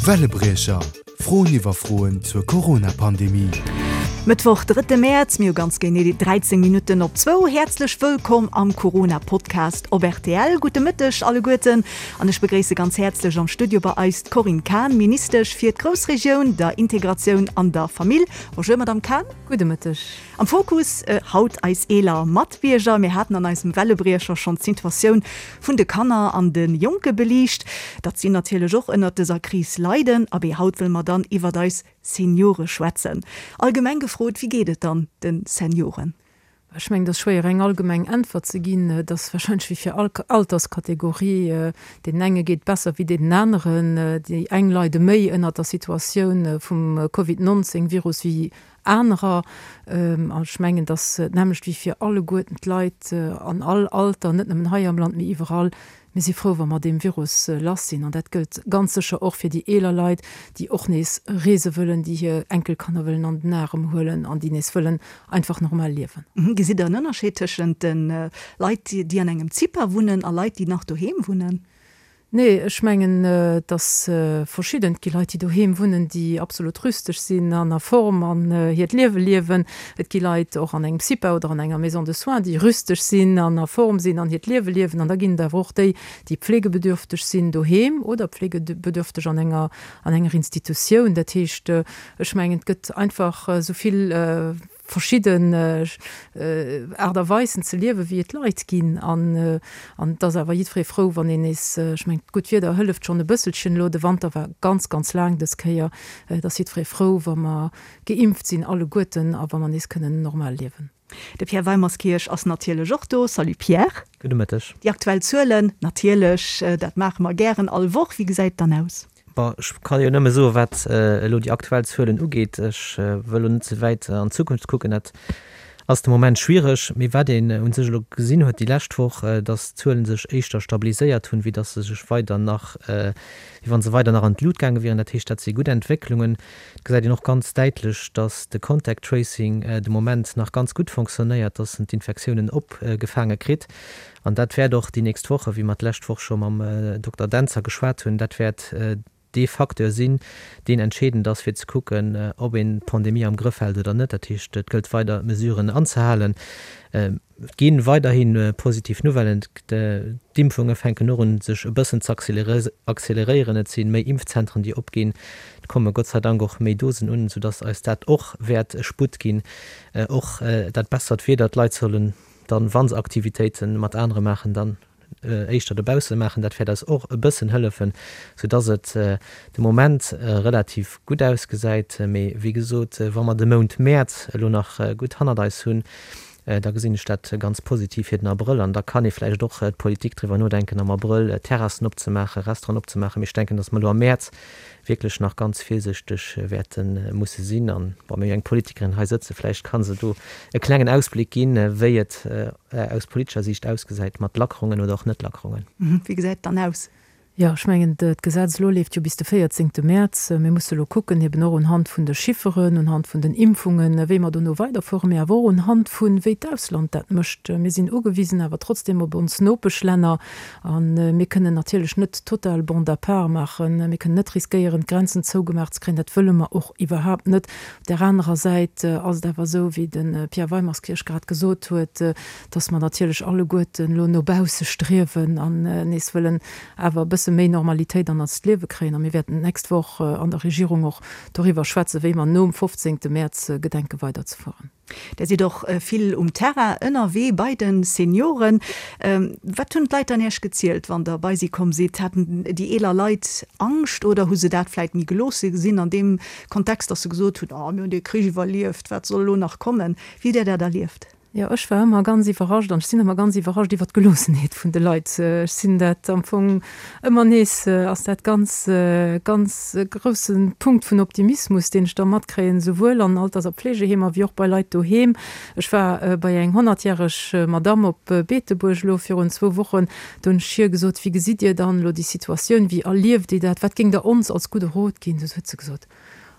Wellebriecher, Froen iwwer Froen zur Corona-Pandemie. Mëttwoch, drëtte Mäerz, mir hu ganz genee 13 Minutten op zwou. Häerzlech wëllkomm am Corona-Podcast op rtl. Gudde Mëtteg alleguerten an ech begréisse ganz häerzlech am Studio bei eis d'Corinne Cahen, Ministesch fir d'Groussregioun, der Integratioun an der Famill. Bonjour Madamm Cahen. Gudde Mëtteg. Am Fokus haut eis eeler Matbierger. Mir haten an eisem Wellebriecher schonn d'Situatioun vun de Kanner an de Jonke beliicht, datt si natierlech och ënnert dëser Kris leiden. Abee, haut wëlle mer dann iwwert eis Seniore schwätzen. Allgemeng gefrot, wéi geet et dann de Senioren? Ech mengen, et ass schwéier eng allgemeng Äntwert ze ginn. Et ass warscheinlech wéi fir all Alterskategorie, deenen enge geet et besser wéi deenen aneren. Déi eng leide méi ënnert der Situatioun vum Covid 19 Virus wéi anerer. An ech mengen, et ass d'nämmlecht wéi fir alleguerten d'Leit an all Alter, net nëmmen hei am Land, mee iwwerall. Mir si frou, wa mer deem Virus lass sinn. An dat gëllt ganz sécher och fir déi eeler Leit, déi och nees reese wëllen, déi hir Enkelkanner wëllen an den Arem huelen an déi nees wëllen einfach normal liewen. Gesitt Der en Ënnerscheed tëschent de Leit, déi an engem CIPA wunnen a Leit, déi nach doheem wunnen? Nee, ech mengen, et ass verschidden. Et gi Leit, déi doheem wunnen, déi absolut rüsteg sinn an a Form an hiert Liewe liewen. Et gi Leit, och an engem CIPA oder an enger Maison de soins, déi rüsteg sinn an a Form sinn an hiert Liewe liewen. An da ginn et awer och déi, déi pflegebedürfteg sinn doheem oder pflegebedürfteg an enger, an enger Institutioun. Dat heescht, ech mengen, et gëtt einfach esou vill verschidden Aart a Weisen ze liewen, wéi et Leit ginn. An et ass awer jiddweree frou, wann een nees, ech mengen, d'gutt Wieder hëlleft schonn e bësselchen elo, de Wanter war ganz, ganz laang dës Kéier, et ass jiddweree frou, wa mer geimpft sinn alleguerten a wa mer nees kënnen normal liewen. De Pierre Weimerskirch ass natierlech och do. Salut Pierre. Gudde Mëtteg. Déi aktuell Zuelen, natierlech, dat maache mer gären all Woch. Wéi gesäit et dann aus? Bon, ech ka jo nëmme soen, wat elo déi aktuell Zuelen ugeet. Ech wëll elo net ze wäit an d'Zukunft kucken, dat ass de Moment schwiereg. Mee wat een u sech elo gesinn huet déi lescht Woch, datt d'Zuele sech éischter stabiliséiert hunn, wéi datt se sech weider nach, wéi wa se weider nach an d'Lut gaange wieren. Dat heescht, dat si gutt Entwécklungen. Et gesäit een och ganz däitlech, datt de Contact Tracing de Moment nach ganz gutt fonctionnéiert, datt en d'Infektiounen opgefaange kritt. An dat wäert och déi nächst Woche, wéi mer d'lescht Woch scho mam Dokter Dentzer geschwat hunn, dat wäert dee Facteur sinn, deen entscheedend ass, fir ze kucken, ob een d'Pandemie am Grëff hält oder net. Dat heescht, et gëllt weider d'Mesuren anzehalen. Et gi weiderhi positiv Nouvellen. D'Impfunge fänken och un, sech e bëssen ze acceleréieren. Et si méi Impfzentren, déi opginn. Et komme Gott sei Dank och méi Dosen un, soudass eis dat och wäert e Sputt ginn. Och dat bessert Wieder, d'Leit sollen Dann, wa se Aktivitéite mat anere maachen, dann éischter dobausse maachen. Dat wäert eis och e bëssen hëllefen, soudass et de Moment relativ gutt ausgesäit. Mee wéi gesot, wa mer de Mount Mäerz elo nach gutt hannert eis hunn, da gesinn ech dat ganz positiv fir den Abrëll. An da kann ee vläicht och d'Politik driwwer nodenken, am Abrëll Terrassen opzemaachen, Restauranten opzemaachen. Mee ech denken, dass mer elo am Mäerz wierklech nach ganz virsichteg wäerte musse sinn. An, bon, mir hu jo eng Politikerin hei sëtzen, vläicht ka se do e klengen Ausbléck ginn, wéi et aus politescher Siicht ausgesäit mat Lackerungen oder och Net-Lackerungen. Wéi gesäit et dann aus? Jo, ech mengen, d'Gesetz elo leeft jo bis de 14. Mäerz. Mir musse elo kucken, eben och unhand vun de Chifferen, unhand vun den Impfungen, wéi mer dono weiderfueren, mee awer och unhand vun, wéi d'Ausland dat mécht. Mir sinn ugewisen awer trotzdem op ons Nopeschlänner. A mir kënnen natierlech net total Bande à part maachen. Mir kënnen net riskéieren, d'Grenzen zougemaach ze kréien. Dat wëlle mer och iwwerhaapt net. Op där anerer Säit ass et awer esou, wéi de Pierre Weimerskirch grad gesot huet, dass mer natierlech alleguerten elo no bausse striewen an nees wëllen awer e bësse méi Normalitéit an eist Liewe kréien. A mir wäerten d'nächst Woch an der Regierung och doriwwer schwätzen, wéi mer nom 15. Mäerz gedenke weiderzefueren. Der sidd och vill um Terrain ënnerwee bei de Senioren. Wat hunn d'Leit dann Iech gezielt, wann Der bei si komm sidd? Haten déi eeler Leit Angscht oder hu se dat vläit méi geloosse gesinn an deem Kontext, datt se gesot hunn, Oh, mir hunn dee Krich iwwerlieft, wat soll elo nach kommen? Wéi hutt Dir dat erlieft? Jo, ech war ëmmer ganz iwwerrascht an ech sinn ëmmer ganz iwwerrascht iwwer d'Geloossenheet vun de Leit. Ech sinn dat am Fong ëmmer nees, ass dat ganz, ganz e grousse Punkt vun Optimismus, deen ech da matkréien, souwuel an Alters a Pflegeheemer wéi och bei Leit doheem. Ech war bei eng honnertjäreg Madamm op Beetebuerg elo virun zwou Wochen. Do hunn ech hir gesot, Wéi gesitt Dir dann elo déi Situatioun? Wéi erlieft Dir dat? Wat géingt Der ons als gudde Rot ginn? Du huet se gesot,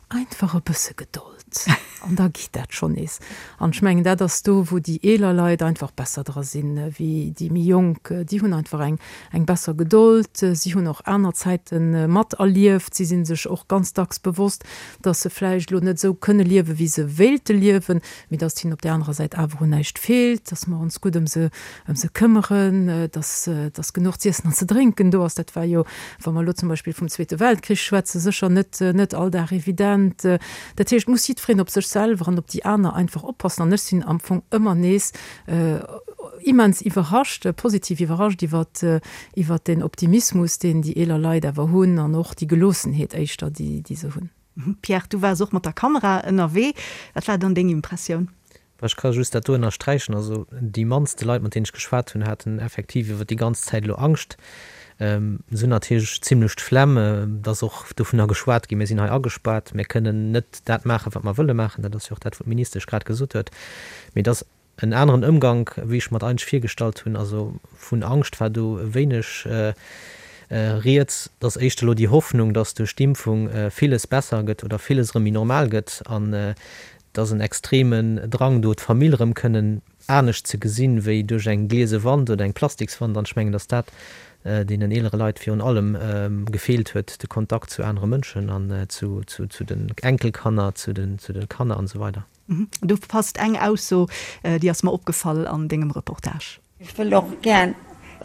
Einfach e bësse Gedold. An da geet dat schonn nees. An ech mengen, dat ass do, wou déi eeler Leit einfach besser dra sinn wéi déi méi jonk. Déi hunn einfach eng, eng besser Gedold. Si hunn och aner Zäite materlieft. Si si sech och ganz dacks bewosst, dass se vläicht elo net esou kënne liewen, wéi se wéilte liewen, mee dass et hinnen op där anerer Säit awer un näischt feelt, dass mer ons gutt ëm se, ëm se këmmeren, dass, dass genuch z'iessen an ze drénken do ass. Dat war jo, wa mer elo zum Beispill vum Zweete Weltkrich schwätzen, sécher net, net all Dag evident. Dat heescht, et muss jiddwereen op sech selwer an op déi aner einfach oppassen. An ech sinn am Fong ëmmer nees immens iwwerrascht, positiv iwwerrascht iwwert, iwwert deen Optimismus, deen déi eeler Leit awer hunn an och déi Geloossenheet éischter, déi, déi se hunn. Pierre, du waars och mat der Kamera ënnerwee. Wat war dann deng Impressioun? Ech ka just dat do ënnersträichen. Also déi mannste Leit, mat deenen ech geschwat hunn, haten effektiv iwwer déi ganz Zäit elo Angscht. Se hunn natierlech zimlech d'Flemm. Et ass och dovunner geschwat ginn, mir sinn hei agespaart, mir kënnen net dat maachen, wat mer wëlle maachen. Dat ass jo och dat, wou d'Ministesch grad gesot huet. Mee et ass en aneren Ëmgank, wéi ech mer et eigentlech virgestallt hunn. Also vun Angscht war do wéineg rieds. Et ass éischter elo déi Hoffnung, datt duerch d'Impfung villes besser gëtt oder villes erëm méi normal gëtt. An Et ass en extremen Drang do, d'Famill erëm kënnen anescht ze gesinn, wéi duerch eng gliese Wand oder eng Plastikswand. An ech mengen, datt dat deenen eelere Leit virun allem gefeelt huet, de Kontakt zu anere Mënschen an zu den Enkelkanner, zu de Kanner an esou weider. Do passt eng Ausso, déi ass mer opgefall an dengem Reportage. Ech wëll och gär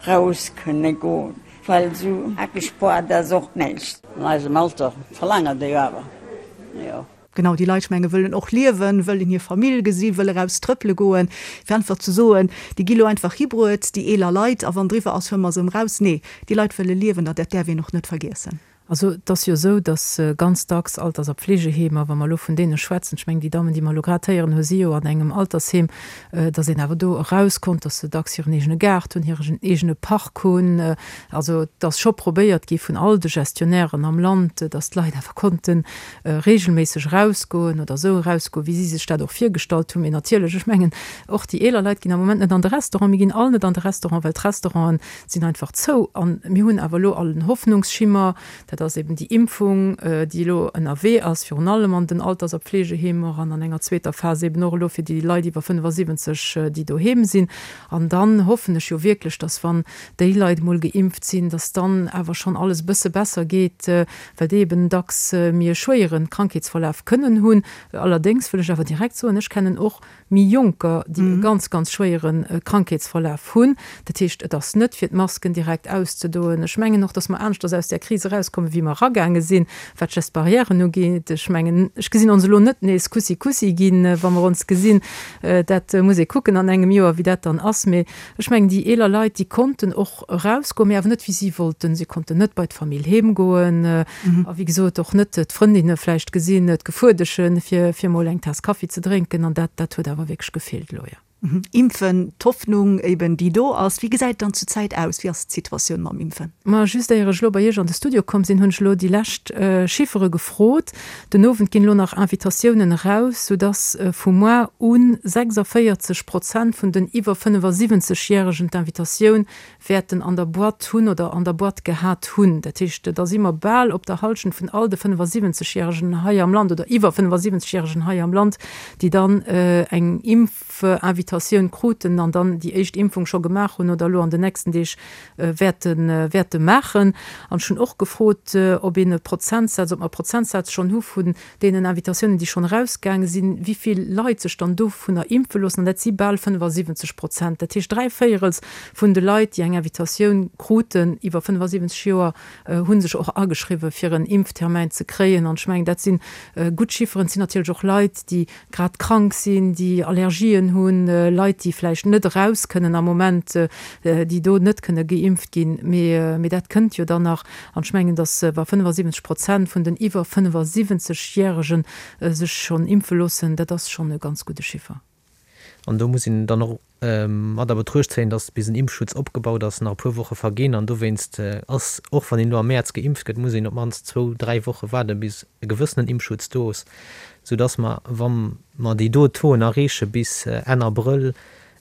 raus kënne goen, well sou agespoart ass och näischt. An eisem Alter verlaangen déi jo awer, jo. Genau, déi Leit, ech menge wëllen och liewen, wëllen hir Famill gesinn, wëlle raus trëppele goen. Fir einfach ze soen, déi gi lo einfach hibruet, déi eeler Leit, a wann driwwer ass, huele mer se erëm raus. Nee, déi Leit wëlle liewen an dat däerf een och net vergiessen. Also et ass jo esou, datt ganz dacks Alters a Pflegeheemer, wa mer elo vun deene schwätzen, ech mengen déi Dammen, déi mer elo grad héieren hu si jo an engem Altersheem, datt een awer do eraus konnt, datt se dacks hiren eegene Gaart hunn, hiren eegene Park hunn. Also et ass scho probéiert gi vun all de Gestionnairen am Land, datt d'Leit awer konnte regelméisseg erausgoen oder esou erausgoen, wéi si sech dat och virgestallt hunn. Mee natierlech, ech mengen och déi eeler Leit ginn am Moment net an de Restaurant. Mir ginn all net an de Restaurant, well d'Restauranten sinn einfach zou. A mir hunn awer elo all en Hoffnungsschimmer, dat ass eben déi Impfung, déi elo ënnerwee ass, virun allem an den Alters a Pflegeheemer an an enger zweeter Phas eben och elo fir déi Leit iwwer 75, déi doheem sinn. An dann hoffen ech jo wierklech, dass, wann déi Leit emol geimpft sinn, dass dann awer schonn alles e bësse besser geet, well déi eben dacks méi e schwéiere Krankheetsverlaf kënnen hunn. Allerdéngs wëll ech awer direkt soen, ech kennen och méi Jonker, déi e ganz, ganz schwéiere Krankheetsverlaf hunn. Dat heescht, et ass net, fir d'Masken direkt auszedoen. Ech mengen och, dass mer aneschters aus där Kris erauskommen, wéi mer eragaange sinn, wat d'Gestes barrièren ugeet. Ech mengen, ech gesinn ons elo net nees Kussi Kussi ginn, wa mer ons gesinn. Dat muss ee kucken an engem Joer, wéi dat dann ass. Mee ech mengen, déi eeler Leit, déi konnten och erausgoen, mee awer net wéi si wollten. Si konnten net bei d'Famill heem goen a wéi gesot och net d'Frëndinne vläicht gesinn, d'Gefuerdeschen, fir fir mol eng Taass Kaffi ze drénken an dat dat huet awer wierklech gefeelt elo, jo. Impfen, d'Hoffnung eben déi do ass. Wéi gesäit et dann zur Zäit aus? Wéi ass d'Situatioun mam Impfen? Ma just éier ech elo bei Iech an de Studio komm sinn, hunn ech elo déi lescht Chiffere gefrot. Den Owend ginn elo nach Invitatiounen eraus, soudass vu moar un 46 Prozent vun den iwwer 75 Järegen d'Invitatioun wäerten an der Boîte hunn oder an der Boîte gehat hunn. Dat heescht, da si mer bal op der Hallschent vun all de 75 Järegen hei am Land oder iwwer 75 Järegen hei am Land, déi dann eng Impfinvitatioun kruten an dann déi éischt Impfung scho gemaach hunn oder elo an den nächsten Deeg wäerte wäerte maachen. An ech hunn och gefrot, ob een e Prozentsaz, ob mer e Prozentsaz schonn hu vun deenen Invitatiounen, déi schonn erausgaange sinn, wéi vill Leit sech dann dovunner impfe loossen. An dat si bal 75 Prozent. Dat heescht, dräivéierels vun de Leit, déi eng Invitatioun kruten iwwer 75 Joer, hu sech och ageschriwwen, fir en Impftermäin ze kréien. An ech mengen, dat si gutt Chifferen. Et sinn natierlech och Leit, déi grad krank sinn, déi Allergien hunn, Leit, déi vläicht net eraus kënnen am Moment, déi do net kënne geimpft ginn. Mee dat kënnt jo dann nach. An ech mengen, datt wa 75 Prozent vun den iwwer 75 Järege sech schonn impfe loossen, dat ass schonn e ganz gudde Chiffer. An do muss een dann och mat a Betruecht zéien, datt bis en Impfschutz opgebaut ass, nach e puer Woche verginn. An dowéinst ass, och wann een elo am Mäerz geimpft gëtt, muss een op d'mannst zwou, dräi Woche waarden, bis e gewëssenen Impfschutz do ass, soudatt mer, wa mer déi do Tauxen erreeche bis Enn Abrëll,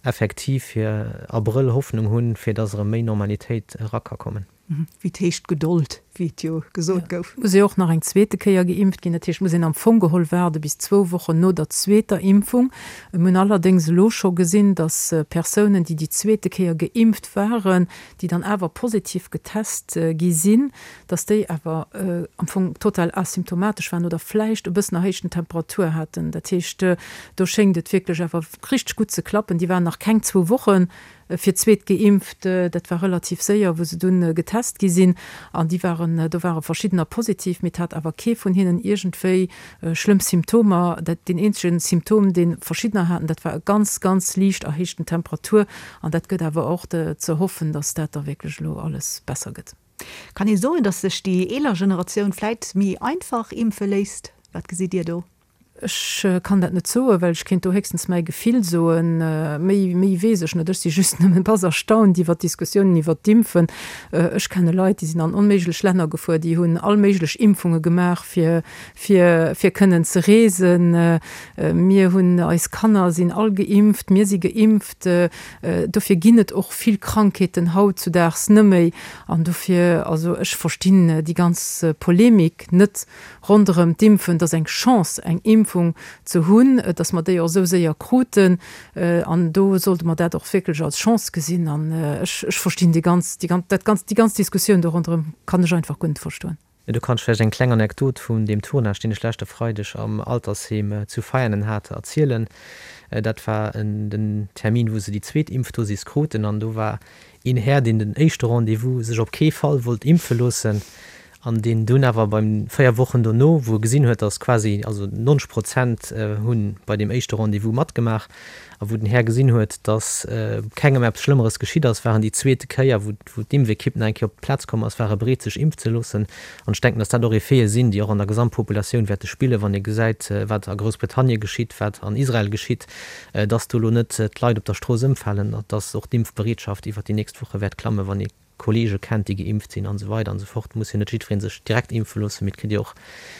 effektiv fir Abrëll Hoffnung hunn, fir datt erëm méi Normalitéit era ka kommen. Wéi 't heescht, Gedold. Wéi et jo gesot gouf. Muss ee och nach eng zweete Kéier geimpft ginn. Dat heescht, muss een am Fong geholl waarde bis zwou Wochen no der zweeter Impfung. Mir hunn allerdéngs elo scho gesinn, datt Persounen, déi déi zweete Kéier geimpft waren, déi dann awer positiv getest gi sinn, datt déi awer am Fong total asymptomatesch waren oder vläicht e bëssen erhéichten Temperatur haten. Dat heescht, do schéngt et wierklech awer richteg gutt ze klappen. Déi waren nach keng zwou Wochen fir d'zweet geimpft. Dat war relativ séier, wou se dunn getest gi sinn. An déi waren, do ware verschiddener positiv, mee et hat awer kee vun hinnen iergendwéi schlëmm Symptomer. Dat, deen eenzege Symptom, dee verschiddener haten, dat war e ganz, ganz liicht erhéichten Temperatur. An dat gëtt awer och ze hoffen, datt dat da wierklech elo alles besser gëtt. Kann ee soen, datt sech déi eeler Generatioun vläit méi einfach impfe léisst? Wat gesitt Dir do? Ech kann dat net soen, well ech kéint do héchstens mäi Gefill soen. Méi, méi weess ech net. Ech si just nëmmen bass erstaunt iwwert d'Diskussiounen iwwert d'Impfen. Ech kenne Leit, déi sinn an onméiglech Länner gefuer, déi hunn all méiglech Impfunge gemaach, fir, fir, fir kënnen ze reesen. Mir hunn, eis Kanner sinn all geimpft, mir si geimpft. Dofir ginn et och vill Krankheeten hautzudaags nëmméi. An dofir, also ech verstinn déi ganz Polemik net. Ronderëm d'Impfen, et ass eng Chance, eng Impfung ze hunn, dass mer déi och esou séier kruten. An do sollte mer dat och wierklech als Chance gesinn. An ech, ech verstinn déi ganz, déi ganz, dat ganz, déi ganz Diskussioun do ronderëm kann ech einfach guer net verstoen. Do kann ech vläicht eng kleng Anekdot vun deem Tournage, deen ech leschte Freideg am Altersheem zu Veianen hat, erzielen. Dat war den Termin, wou se déi zweet Impfdosis kruten. An do war een Här, deen den éischte Rendez-vous sech op kee Fall wollt impfe loossen an deen dunn awer beim 4 Wochen dono, wou e gesinn huet, datt quasi, also 90 Prozent hu bei deem éischte Rendez-vous matgemaach, a wou den Här gesinn huet, datt kengem eppes Schlëmmeres geschitt ass, war en déi zweete Kéier, wou d'Impfekipp nach eng Kéier op d'Plaz komm ass, war e bereet sech impf ze loossen. An ech denken, datt dat och Effete sinn, déi och an der Gesamtpopulatioun wäerte spillen, wann ee gesäit, wat a Groussbritannien geschitt, wat an Israel geschitt, dass do elo net d'Leit op der Strooss ëmfalen, dass och d'Impfbereetschaft iwwert déi nächst Woche wäert klammen, wann ee Kolleege kennt, déi geimpft sinn an esou weider an esou fort. Muss jo net jiddweree sech direkt impfe loossen, mee et kritt jo och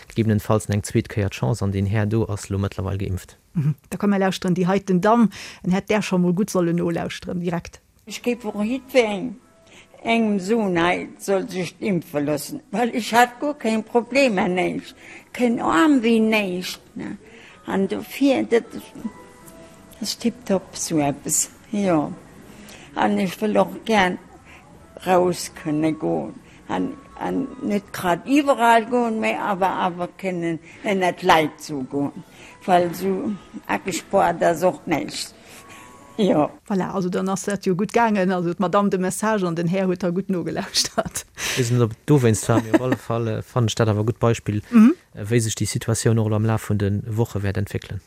gegebenenfalls eng zweet Kéier d'Chance an deen Här do ass elo mëttlerweil geimpft. Da komm mer lauschteren déi heiten Damm, en hätt där scho mol gutt sollen nolauschteren direkt. Ech géif och jiddwerengem engem soen, hei soll sech impfe loossen, well ech hat guer keng Problemer, näischt, keen Aarmwéi, näischt, ne, an dofir, dat ass tiptop sou eppes, jo. An ech wëll och gär raus kënne goen an an net grad iwwerall goen, mä awer awer kënnen ënnert d'Leit sou goen, well sou agespoart ass och näischt. Jo. Voilà, also dann ass dat jo gutt gaangen. Also d'Madame de Message an den Här huet da gutt nogelauschtert. Ech weess net, ob et dowéinst war, mee op alle Fall fannen ech dat awer e gutt Beispill, wéi sech déi Situatioun och elo am Laf vun de Woche wäert entwéckelen.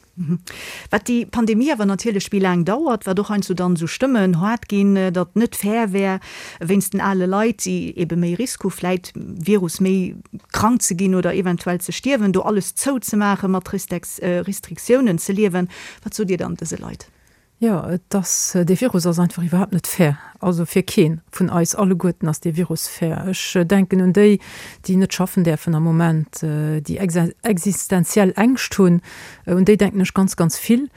Wat déi Pandemie awer natierlech méi laang dauert, wat och heiansdo dann esou Stëmmen haart ginn, datt net fair wär wéinst den ale Leit, déi ebe méi Risk hu vläit Virus méi krank ze ginn oder eventuell ze stierwen, do alles zouzemaachen, mat Restriktiounen ze liewen. Wat sot Dir dann dëse Leit? Jo, et ass, dee Virus ass einfach iwwerhaapt net fair. Also fir kee vun eis alleguerten ass dee Virus fair. Ech denken un déi, déi net schaffen däerfen am Moment, déi existenziell Ängscht hunn, un déi denken ech ganz, ganz vill.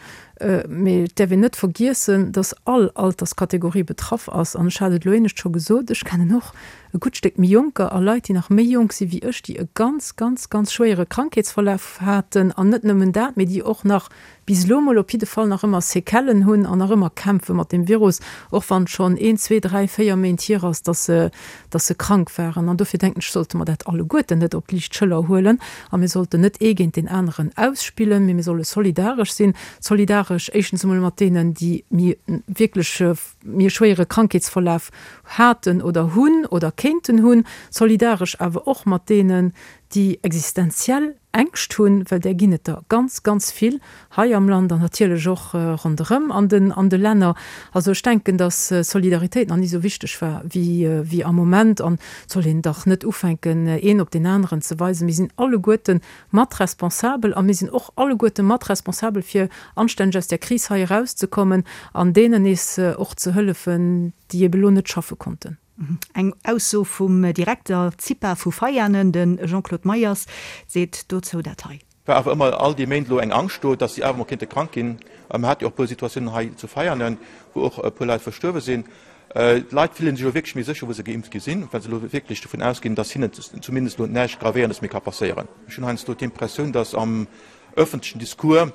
Mee et däerf een net vergiessen, datt all Alterskategorie betraff ass. An ech hat et elo éinescht scho gesot, ech kennen och e gutt Stéck méi Jonker a Leit, déi nach méi jonk si wéi ech, déi e ganz, ganz, ganz schwéiere Krankheetsverlaf haten an net nëmmen dat, mee déi och nach bis elo mol op jidde Fall nach ëmmer Séquellen hunn an nach ëmmer kämpfe mat deem Virus, och wann et schonn een, zwee, dräi, véier Méint hier ass, dass se, dass se krank waren. An dofir denken ech, sollte mer dat alleguerten net op d'liicht Schëller huelen a mir sollten net ee géint deen aneren ausspillen, mee mir solle solidaresch sinn. Solidaresch éischtens emol mat deenen, déi méi wierklech méi e schwéiere Krankheetsverlaf haten oder hunn oder kéinten hunn, solidaresch awer och mat deenen, déi existenziell Ängscht hunn, well där ginn et der ganz, ganz vill hei am Land an natierlech och ronderëm an den an de Länner. Also ech denken, datt Solidaritéit nach ni esou wichteg war wéi wéi am Moment an et soll een dach net ufänken, een op deen aneren ze weisen. Mir sinn alleguerte mat responsabel a mir sinn och alleguerte mat responsabel fir anstänneg aus där Kris hei erauszekommen an deenen nees och ze hëllefen, déi ebe lo net schaffe konnten. Eng Ausso vum Direkter CIPA vu Veianen, de Jean-Claude Meyers, seet dozou dat hei. War awer ëmmer all déi Méint elo eng Angscht do, dass si awer mol kéinte krank ginn. Mer hate jo och e puer Situatiounen hei zu Veianen, wou och e puer Leit verstuerwe sinn. D'Leit fillen sech elo wierklech méi sécher, wou se geimpft gi sinn, well se elo wierklech dovun ausginn, dass hinnen zumindest elo näischt Gravéierendes méi ka passéieren. Ech hunn heiansdo d'Impressioun, dass am ëffentlechen Discours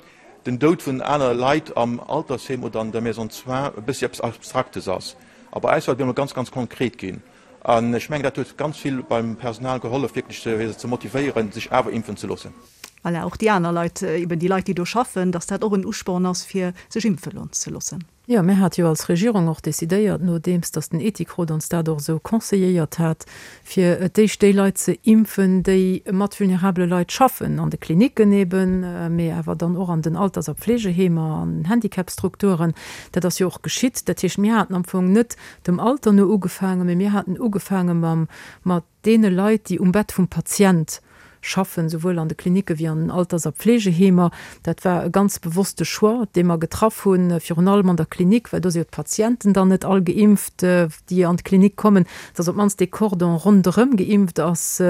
den Doud vun anere Leit am Altersheem oder an der Maison de soins e bëssi eppes Abstraktes ass. A bei eis war et op eemol ganz, ganz konkret ginn. An ech mengen, dat huet ganz vill beim Personal gehollef, wierklech fir se ze motivéieren, sech awer impfen ze loossen. Voilà, och déi aner Leit, eben déi Leit, déi do schaffen, dass dat och en Usporn ass, fir sech impfe ze loossen. Jo, mir hate jo als Regierung och decidéiert, nodeems datt den Ethikrot ons dat och esou conseilléiert hat, fir et d'éischt déi Leit ze impfen, déi mat vulnerabele Leit schaffen, an de Klinicken eben, mee awer dann och an den Alters a Pflegeheemer, an den Handicapstrukturen. Dat ass jo och geschitt. Dat heescht, mir haten am Fong net dem Alter no ugefaangen, mee mir haten ugefaange mam, mat deene Leit, déi um Bett vum Patient schaffen, souwuel an de Klinicke wéi an den Alters a Pflegeheemer. Dat war e ganz bewosste Choix, dee mer getraff hunn, virun allem an der Klinik, well do si jo d'Patienten dann net all geimpft, déi an d'Klinik kommen, dass op d'mannst dee Cordon ronderëm geimpft ass,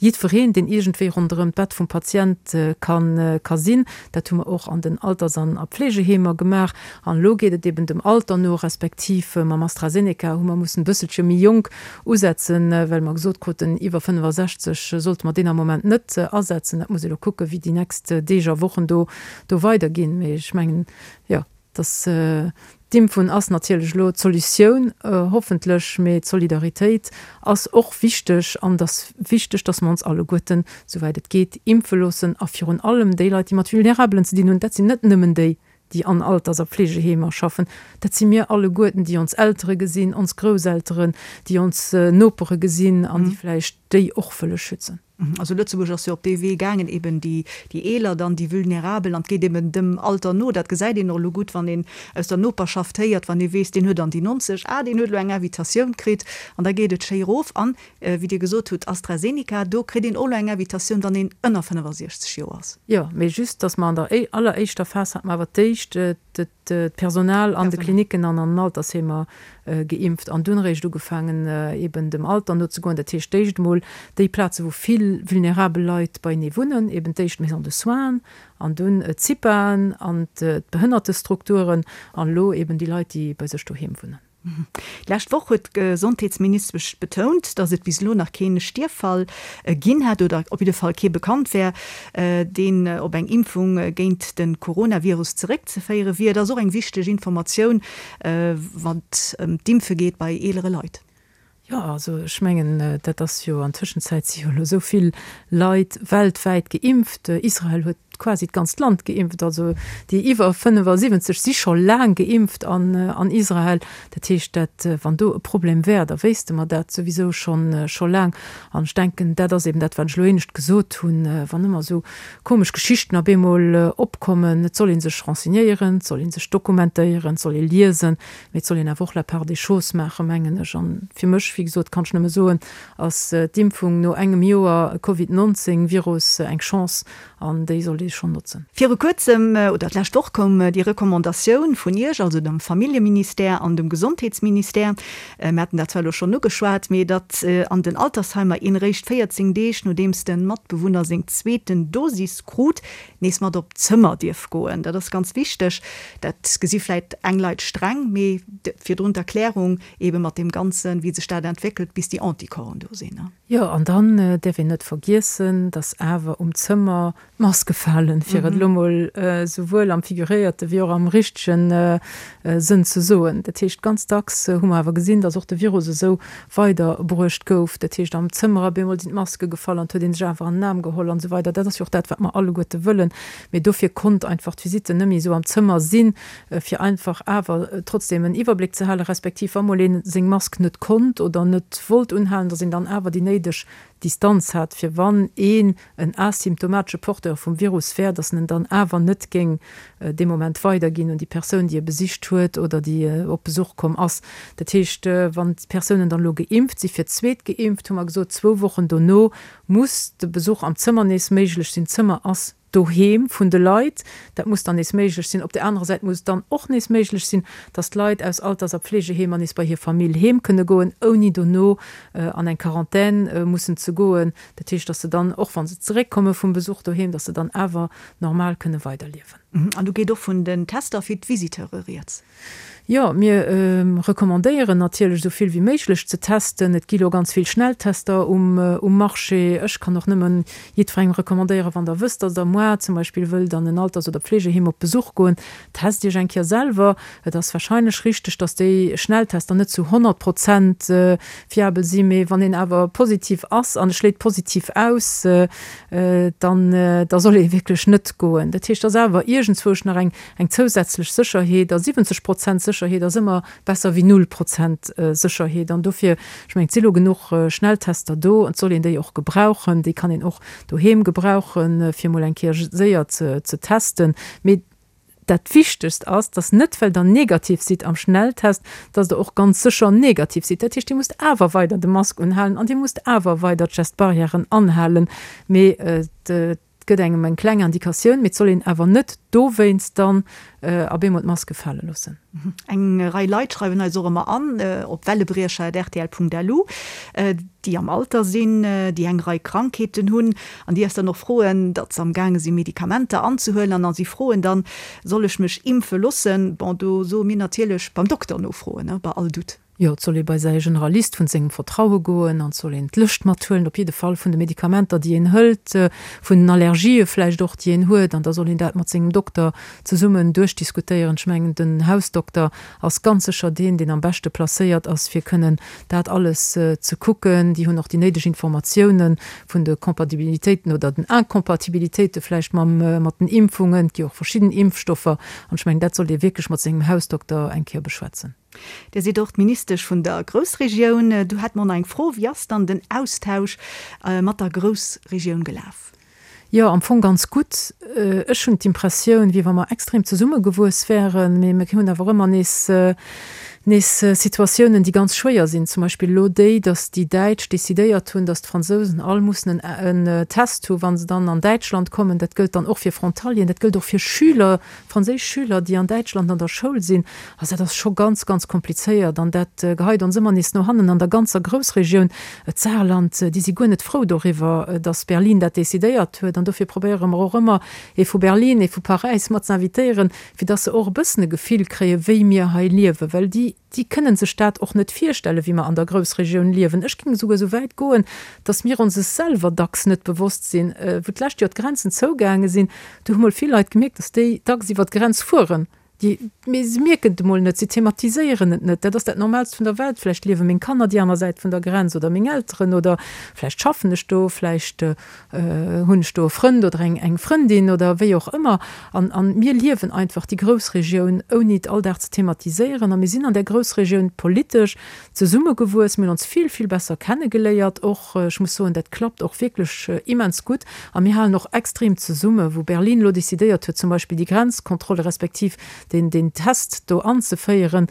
jiddwereen, deen iergendwéi ronderëm d'Bett vum Patient ka sinn. Dat hu mer och an den Alters an a Pflegeheemer gemaach. An elo geet et eben dem Alter no, respektiv mam AstraZeneca hu mer mussen e bësselche méi jonk usetzen, well mer gesot kruten, iwwer 65 sollte mer deen am Moment net asetzen. Dat muss ee elo kucken, wéi déi nächst Deeg a Wochen do do weiderginn. Mee ech mengen, jo, dass d'Impfung ass natierlech elo d'Solutioun, hoffentlech, mee d'Solidaritéit ass och wichteg an et ass wichteg, dass mer ons alleguerten, souwäit et geet, impfe loossen a virun allem déi Leit, déi mat Vulnerabelen ze dinn hunn, dat sinn net nëmmen déi, déi an Alters a Pflegeheemer schaffen, dat si mir alleguerten, déi ons Eltere gesinn, ons Grousselteren, déi ons Nopere gesinn an déi vläicht déi och wëlle schützen. Also Lëtzebuerg ass jo op dee Wee gaangen, eben déi Eeler dann, déi Vulnerabel, an et geet eben dem Alter no. Dat gesäit een och elo gutt, wann een aus der Noperschaft héiert, wann ee weess, deen huet an déi 90, ah, deen huet elo eng Invitatioun kritt, an da geet et schéi erof. An, wéi Dir gesot hutt, AstraZeneca, do kritt een och elo eng Invitatioun, wann een ënner 65 Joer ass. Jo, mee just, dass mer an der alleréischter Phas hate mer awer d'éischt d'Personal an de Klinicken an an den Altersheemer geimpft an dunn eréischt ugefaangen, eben dem Alter nozegoen. Dat heescht, d'éischt emol déi Plaze wou vill vulnerabel Leit beienee wunnen, eben d'éischt d'Maisons de soins an dunn d'CIPAen an d'Behënnertestrukturen an elo eben déi Leit, déi bei sech doheem wunnen. D'lescht Woch huet d'Gesondheetsministesch betount, datt et bis elo nach kee Stierffall ginn hätt oder op jidde Fall kee bekannt wär, deen op eng Impfung géint de Coronavirus zeréckzeféiere wier. Dat ass och eng wichteg Informatioun, wann et ëm d'Impfe geet bei eelere Leit. Jo, also ech mengen, dat ass jo, an Tëschenzäit si jo elo esou vill Leit weltwäit geimpft. Israel huet quasi d'ganzt Land geimpft, also déi iwwer 75 si scho laang geimpft an Israel. Dat heescht, dat, wann do e Problem wär, da wéisste mer dat souwisou schonn, scho laang. An ech denken, dat ass eben dat, wat ech elo éinescht gesot hunn, wann ëmmer esou komesch Geschichten op eemol opkommen, et soll ee sech renseignéieren, et soll ee sech dokumentéieren, et soll ee liesen, mee et soll een awer och la part des choses maachen, mengen ech. An fir mech, wéi gesot, kann ech nëmme soen, ass d'Impfung no engem Joer Covid 19 Virus eng Chance an déi sollt ee schonn notzen. Viru kuerzem, oder d'lescht Woch koum déi Recommandatioun vun Iech, also dem Familljeministère an dem Gesondheetsministère, mir haten dat zwar elo schonn ugeschwat, mee datt an den Altersheimer een eréischt 14 Deeg nodeems de Matbewunner seng zweeten Dosis krut, nees mat op d'Zëmmer dierf goen. Dat ass ganz wichteg. Dat gesi vläit eng Leit streng, mee virdrun d'Erklärung eebe mat deem Ganzen, wéi sech dat entwéckelt, bis déi Anticorpsen do sinn. Jo, an dann däerf een net vergiessen, dass awer um Zëmmer d'Maske falen, fir et elo mol souwuel am figuréierte wéi och am richtege Sënn ze soen. Dat heescht, ganz dacks hu mer awer gesinn, dass och de Virus esou weiderbruecht gouf. Dat heescht, am Zëmmer op eemol sinn d'Maske gefall an et huet ee sech awer an den Aarm geholl an esou weider. Dat ass jo och dat, wat mer alleguerte wëllen. Mee dofir konnt einfach d'Visite net méi esou am Zëmmer sinn, fir einfach awer trotzdem en Iwwerbléck ze halen, respektiv wa mol ee seng Mask net konnt oder net wollt unhalen, datt een dann awer déi néideg Distanz hat, fir wann een en asymptomatesche Porteur vum Virus wär, datt en en dann awer net géing dee Moment weiderginn un déi Persoun, déi e besicht huet oder déi op Besuch komm ass. Dat heescht, wann d'Persounen dann elo geimpft si fir d'zweet geimpft, hu mer gesot, zwou Wochen dono muss de Besuch am Zëmmer nees méiglech sinn. D'Zëmmer ass Doheem vun de Leit. Dat muss dann nees méiglech sinn. Op där anerer Säit muss et dann och nees méiglech sinn, dass d'Leit aus Alters a Pflegeheemer nees bei hir Famill heem kënne goen, ouni dono an eng Quarantän mussen ze goen. Dat heescht, dass se dann, och wa se zeréckkomme vum Besuch doheem, dass se dann awer normal kënne weiderliewen. An do geet och vun den Tester fir d'Visiteure rieds. Jo, mir recommandéieren natierlech esou vill wéi méiglech ze testen. Et gi lo ganz vill Schnelltester um Marché. Ech kann och nëmmen jiddwerengem recommandéieren, wann der wësst, dass der moar zum Beispill wëllt an en Alters oder Pflegeheem op Besuch goen, test iech eng Kéier selwer. Et ass warscheinlech richteg, dass déi Schnelltester net zu 100 Prozent fiabel sinn, mee wann een awer positiv ass an e schléit positiv aus, dann da soll ee wierklech net goen. Dat heescht, et ass awer iergendzwousch nach eng eng zousätzlech Sécherheet, a 70 Prozent Sécherheet ass ëmmer besser wéi null Prozent Sécherheet. An dofir, ech mengen, et si lo genuch Schnelltester do, et soll een déi och gebrauchen, déi kann een och doheem gebrauchen, fir emol eng Kéier séier ze testen. Mee Dat Wichtegst ass, dass net well der negativ sidd am Schnelltest, dass der och ganz sécher negativ sidd. Dat heescht, Dir musst awer weider de Mask unhalen an Dir musst awer weider d'Gest-barrièren anhalen. Mee et gëtt engem eng kleng Indikatioun, mee et soll een awer net dowéinst dann op eemol d'Maske fale loossen. Eng Rei Leit schreiwen eis och ëmmer an op wellebriecher@rtl.lu, déi am Alter sinn, déi eng Rei Krankheeten hunn an déi eis dann och froen, datt se am gaange si Medikamenter anzehuelen an a si froen dann, soll ech mech impfe loossen? Bon, do soe mir natierlech, beim Dokter nofroen, bei all Doute. Jo, et soll ee bei säi Generalist vun sengem Vertraue goen an et soll een d'Lëscht mathuelen, op jidde Fall vun de Medikamenter, déi een hëlt, vun den Allergië vläicht och, déi een huet, an da soll een dat mat sengem Dokter zesummen duerchdiskutéieren. Ech mengen, den Hausdokter ass ganz sécher deen, deen am beschte placéiert ass, fir kënnen dat alles ze kucken. Déi hunn och déi néideg Informatiounen vun de Compatibilitéiten oder den Incompatibilitéite vläicht mam, mat den Impfungen. Et gi och verschidden Impfstoffer an ech mengen, dat sollt ee wierklech mat sengem Hausdokter eng Kéier beschwätzen. Dir sidd och d'Ministesch vun der Groussregioun. Do hätte mer och nach eng Fro, Wéi ass dann den Austausch mat der Groussregioun gelaf? Jo, am Fong ganz gutt. Ech hunn d'Impressioun, wéi wa mer extrem zesummegewuess wären, mee mir hunn awer ëmmer nees nees Situatiounen, déi ganz schwéier sinn. Zum Beispill elo déi, datt déi Däitsch decidéiert hunn, datt d'Fransousen all mussen en Test hu wa se dann an Däitschland kommen. Dat gëllt dann och fir Frontalieren, dat gëllt och fir Schüler, franséisch Schüler, déi an Däitschland an der Schoul sinn, also dat ass scho ganz, ganz komplizéiert an dat geheit ons ëmmer nees no hannen an der ganzer Groussregioun. D'Saarland, déi si guer net frou doriwwer, datt Berlin dat decidéiert huet an dofir probéiere mer och ëmmer, ee vu Berlin, ee vu Paräis mat ze invitéieren, fir datt se och e bëssen e Gefill kréien, wéi mir hei liewen, well déi, déi kënnen sech dat och net virstellen, wéi mer an der Groussregioun liewen. Ech géing esouguer esou wäit goen, dass mir ons es selwer dacks net bewosst sinn. Wou d'lescht Joer d'Grenzen zougaange sinn, do hu mol vill Leit gemierkt, dass déi dacks iwwer d'Grenz fueren. Déi, mee se mierken et emol net, se thematiséieren et net. Dat ass dat Normaalst vun der Welt. Vläicht liewe meng Kanner déi aner Säit vun der Grenz oder meng Elteren oder vläicht schaffen ech do, vläicht Hunn ech do e Frënd oder eng Frëndin oder wéi och ëmmer. An an mir liewen einfach déi Groussregioun, ouni et all Dag ze thematiséieren. A mir sinn an där Groussregioun politesch zesummegewuess. Mir hunn ons vill, vill besser kennegeléiert och. Ech muss soen, dat klappt och wierklech immens gutt. A mir halen och extrem zesumme. Wou Berlin elo decidéiert huet, zum Beispill déi Grenzkontrolle respektiv deen, deen Test do anzeféieren,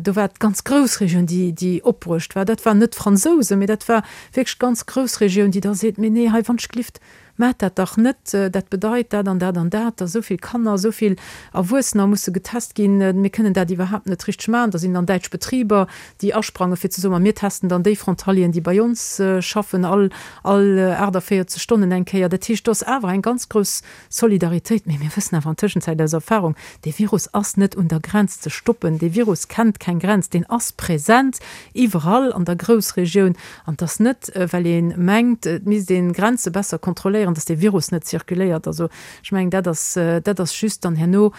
do war d'ganz Groussregioun, déi, déi opbruecht war. Dat waren net d'Fransousen, mee dat war wierklech d'ganz Groussregioun, déi da seet, Mee nee, hei wannschglift, maacht dat dach net, dat bedeit dat an dat an dat, dass esou vill Kanner, esou vill Erwuessener musse getest ginn, mir kënnen dat iwwerhaapt net richteg maachen. Da sinn dann däitsch Betriber, déi asprange fir ze soen, ma mir testen dann déi Frontalieren, déi bei ons schaffen, all all 48 Stonnen eng Kéier. Dat heescht, do ass awer eng ganz grouss Solidaritéit, mee mir wëssen awer an Tëschenzäit aus Erfahrung, dee Virus ass net un der Grenz ze stoppen, dee Virus kennt keng Grenz, deen ass present iwwerall an der Groussregioun. An et ass net, well ee mengt, et misst ee Grenze besser kontrolléieren, datt dee Virus net zirkuléiert. Also ech mengen, dat ass, dat ass just dann herno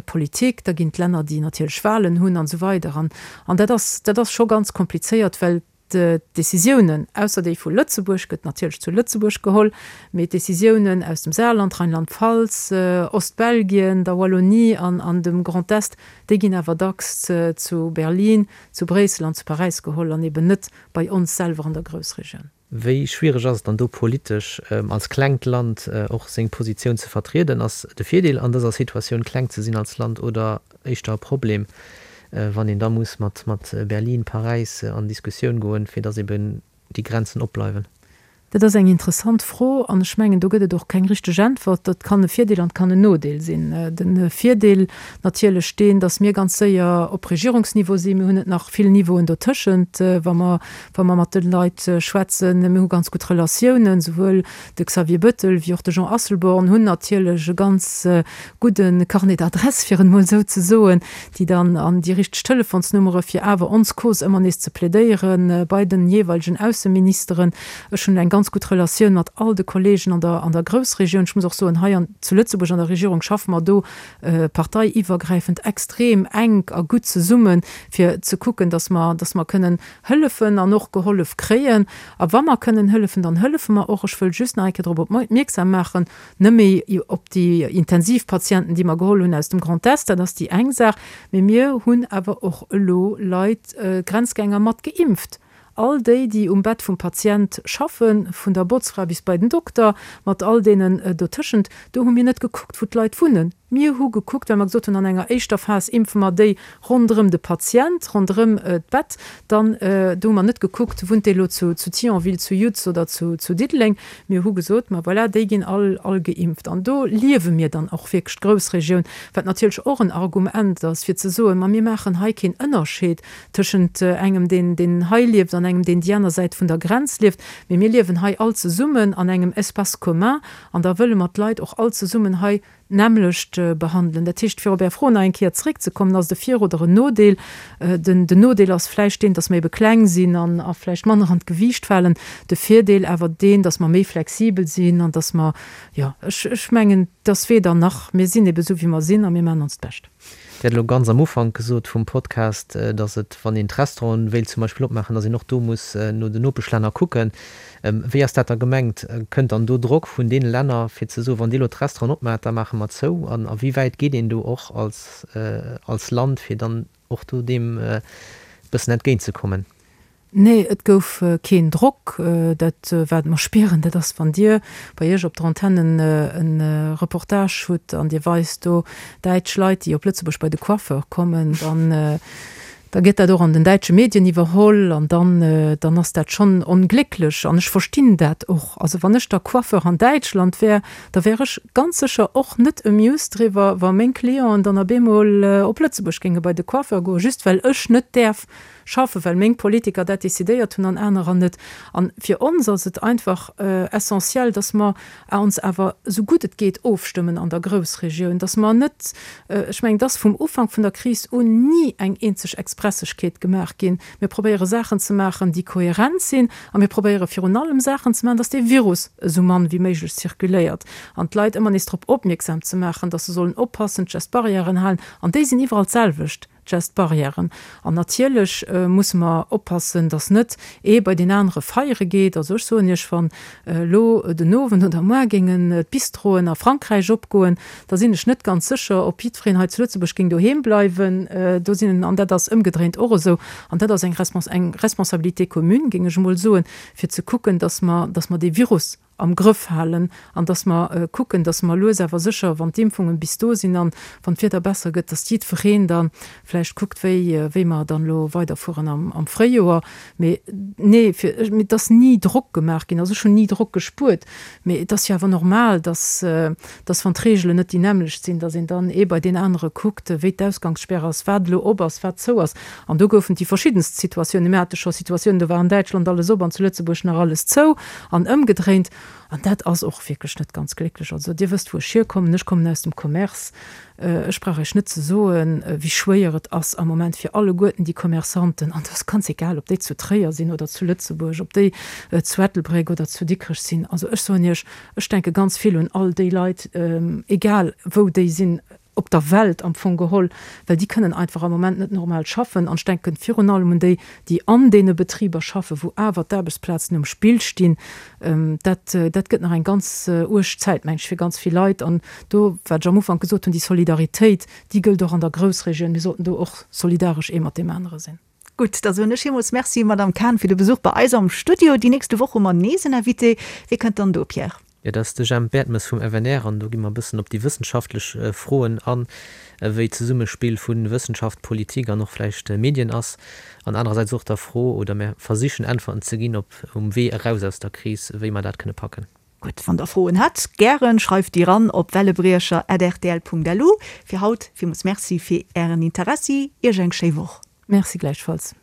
Politik, da ginn d'Länner, déi natierlech Wahlen hunn an esou weider. An dat ass, dat ass scho ganz komplizéiert, well D'Décisiounen, ausser déi vu Lëtzebuerg, gëtt natierlech zu Lëtzebuerg geholl, mee d'Décisiounen aus dem Saarland, Rheinland-Pfalz, Ostbelgien, der Wallonie an an dem Grand Est, déi ginn awer dacks zu Berlin, zu Bréissel an zu Paräis geholl an eben net bei ons selwer an der Groussregioun. Wéi schwiereg ass et dann do politesch als klengt Land och seng Positioun ze vertrieden? Ass de Virdeel an dëser Situatioun kleng ze sinn als Land oder éischter e Problem, wann een da muss mat Berlin, Paräis an Diskussioun goen, fir datt eben déi Grenzen opbleiwen? Dat ass eng interessant Fro an ech mengen, do gëtt et och keng richteg Äntwert. Dat kann e Virdeel an et kann en Nodeel sinn. De Virdeel natierlech deen, datt mir ganz séier op Regierungsniveau sinn. Mir hunn net nach vill Niveauen dotëschent, wa mer, wa mer mat de Leit schwätzen. Mir hu ganz gutt Relatiounen, souwuel de Xavier Bettel wéi och de Jean Asselborn hunn natierlech e ganz gudde Carnet d'adresses, fir et emol esou ze soen, déi dann an déi richteg Telefonsnummere fir awer ons Cause ëmmer nees ze plädéiere bei den jeeweilegen Ausseministeren. Ech hunn eng ganz gutt Relatioun mat all de Kollegen an der an der Groussregioun. Ech muss och soen, hei an zu Lëtzebuerg an der Regierung schaffe mer do parteiiwwergräifend extrem enk a gutt zesummen, fir ze kucken, datt mer datt mer kënnen hëllefen an och gehollef kréien. A wa mer kënnen hëllefen, dann hëllefe mer och. Ech wëll just nach eng Kéier drop opmierksam maachen, Net méi op déi Intensivpatienten, déi mer geholl hunn aus dem Grand Est, dat ass déi eng Saach, mee mir hunn awer och elo Leit, Grenzgänger mat geimpft. All déi, déi um Bett vum Patient schaffen, vun der Botzfra bis bei den Dokter, mat all deenen dotëschent, do hu mir net gekuckt, wou d'Leit wunnen. Mir hu gekuckt, well mer gesot hunn, an enger éischter Phas impfe mer déi ronderëm de Patient, ronderëm d'Bett. Dann, do hu mer net gekuckt, wunnt dee elo zu Thionville, zu Yutz oder zu Diddeleng. Mir hu gesot, ma voilà, déi ginn all all geimpft. An do liewe mir dann och wierklech d'Groussregioun, wat natierlech och en Argument ass, fir ze soen, ma mir maachen hei keen Ënnerscheed tëschent engem, deen deen hei lieft an engem, deen déi aner Säit vun der Grenz lieft, mee mir liewen hei all zesummen an engem Espace commun an da wëlle mer d'Leit och all zesummen hei d'nämmlecht behandelen. Dat heescht, fir op Är Fro nach eng Kéier zréckzekommen, ass et e Vir oder en Nodeel? Den Nodeel ass vläicht deen, dass mer ebe kleng sinn an a vläicht manner an d'Gewiicht falen. De Virdeel awer deen, dass mer méi flexibel sinn an dass mer, jo, ech, ech mengen, et ass weder nach. Mir sinn ebe esou, wéi mer sinn a mir maachen onst Bescht. Dir hat elo ganz am Ufank gesot vum Podcast, dass et, wann een d'Restauranten wéilt zum Beispill opmaachen, dass een och do muss no den Nopeschlänner kucken. Wéi ass dat da gemengt? Kënnt dann do Drock vun deene Länner, fir ze soen, wann Dir elo d'Restauranten opmaacht, da maache mer zou? An a wéi wäit geet een do och als als Land, fir dann och do deem e bëssen entgéintzekommen? Nee, et gouf keen Drock. Dat, wat mer spieren, dat ass, wann Dir bei Iech op der Antenne e Reportage hutt an Dir weist do däitsch Leit, déi op Lëtzebuerg bei de Coiffeur kommen, dann, da gëtt dat och an den däitsche Medien iwwerholl an dann, dann ass dat schonn onglécklech. An ech verstinn dat och. Also wann ech da Coiffeur an Däitschland wär, da wär ech ganz sécher och net amused driwwer, wa meng Clienten dann op eemol op Lëtzebuerg géinge bei de Coiffeur goen, just well ech net däerf schaffen, well meng Politiker dat decidéiert hunn an anerer net. An fir ons ass et einfach essentiel, dass mer ons awer esou gutt et geet ofstëmmen an der Groussregioun, dass mer net, ech mengen, et ass vum Ufank vun der Kris un ni eng eenzeg Expressegkeet gemaach ginn. Mir probéiere Saachen ze maachen, déi kohärent sinn a mir probéiere virun allem Saachen ze maachen, dass dee Virus esou mann wéi méiglech zirkuléiert an d'Leit ëmmer nees drop opmierksam ze maachen, dass se sollen oppassen, d'Gest-Barrièren halen an déi sinn iwwerall d'selwecht. Gest-Barrièren. An natierlech musse mer oppassen, dass net ee bei deen anere feiere geet. Also ech soen Iech, wann elo den Owend oder muar géingen d'Bistroen a Frankräich opgoen, da sinn ech net ganz sécher, ob jiddwereen hei zu Lëtzebuerg géing doheem bleiwen. Do sinn, an dat ass ëmgedréint och esou, an dat ass eng eng Responsabilité commune, géing ech emol soen, fir ze kucken, dass mer, dass mer dee Virus am Grëff halen an dass mer kucken, dass mer lues awer sécher, wann d'Impfungen bis do sinn an wann d'Wieder besser gëtt, dass jiddwereen da vläicht kuckt, wéi, wéi mer dann elo weiderfueren am, am Fréijoer. Mee nee, fir, et ass ni Drock gemaach ginn, also ech hunn ni Drock gespuert, mee et ass jo awer normal, dass, dass wann d'Reegelen net déi nämmlecht sinn, dass een dann ee bei deen anere kuckt, wéi d'Ausgangssperr ass, wat elo op ass, wat zou ass. An do goufen et déi verschiddenst Situatiounen. Mir hate scho Situatiounen, do war an Däitschland alles op an zu Lëtzebuerg nach alles zou an ëmgedréint. An dat ass och wierklech net ganz glécklech. Also Dir wësst, wou ech hierkommen. Ech kommen aus dem Commerce. Ech brauch Iech net ze soen, wéi schwéier et ass am Moment fir alleguerten déi Commerçanten, an et ass ganz egal, ob déi zu Tréier sinn oder zu Lëtzebuerg, ob déi zu Ettelbréck oder zu Dikrech sinn. Also ech soen Iech, ech denke ganz vill un all déi Leit, egal wou déi sinn, op der Welt am Fong geholl, well déi kënnen einfach am Moment net normal schaffen. An ech denken virun allem un déi, déi an deene Betriber schaffen, wou awer d'Aarbechtsplazen um Spill stinn. Dat, dat gëtt nach eng ganz uerg Zäit, meng ech, fir ganz vill Leit. An do, wat ech am Ufank gesot hunn, déi Solidaritéit, déi gëllt och an der Groussregioun. Mir sollten do och solidaresch ee mat deem anere sinn. Gutt, da soen ech villmools Merci, Madamm Cahen, fir de Besuch bei eis am Studio. Déi nächste Woch hu mer nees en Invité. Wie kënnt dann do, Pierre? Jo, dat ass de Jemp Bertmes vum FNR an do gi mer e bëssen op déi wëssenschaftlech Froen an, wéi d'Zesummespill vu Wëssenschaft, Politik an och vläicht Medien ass an anerersäits och der Fro, oder mir versichen Äntwerten ze ginn op um Wee eraus aus der Kris, wéi mer dat kënne packen. Gutt, wann der Froen hätt, gären, schreift déi ran op wellebriecher@rtl.lu. Fir haut villmools Merci fir ären Interessi, iech eng schéi Woch. Merci gläichfalls.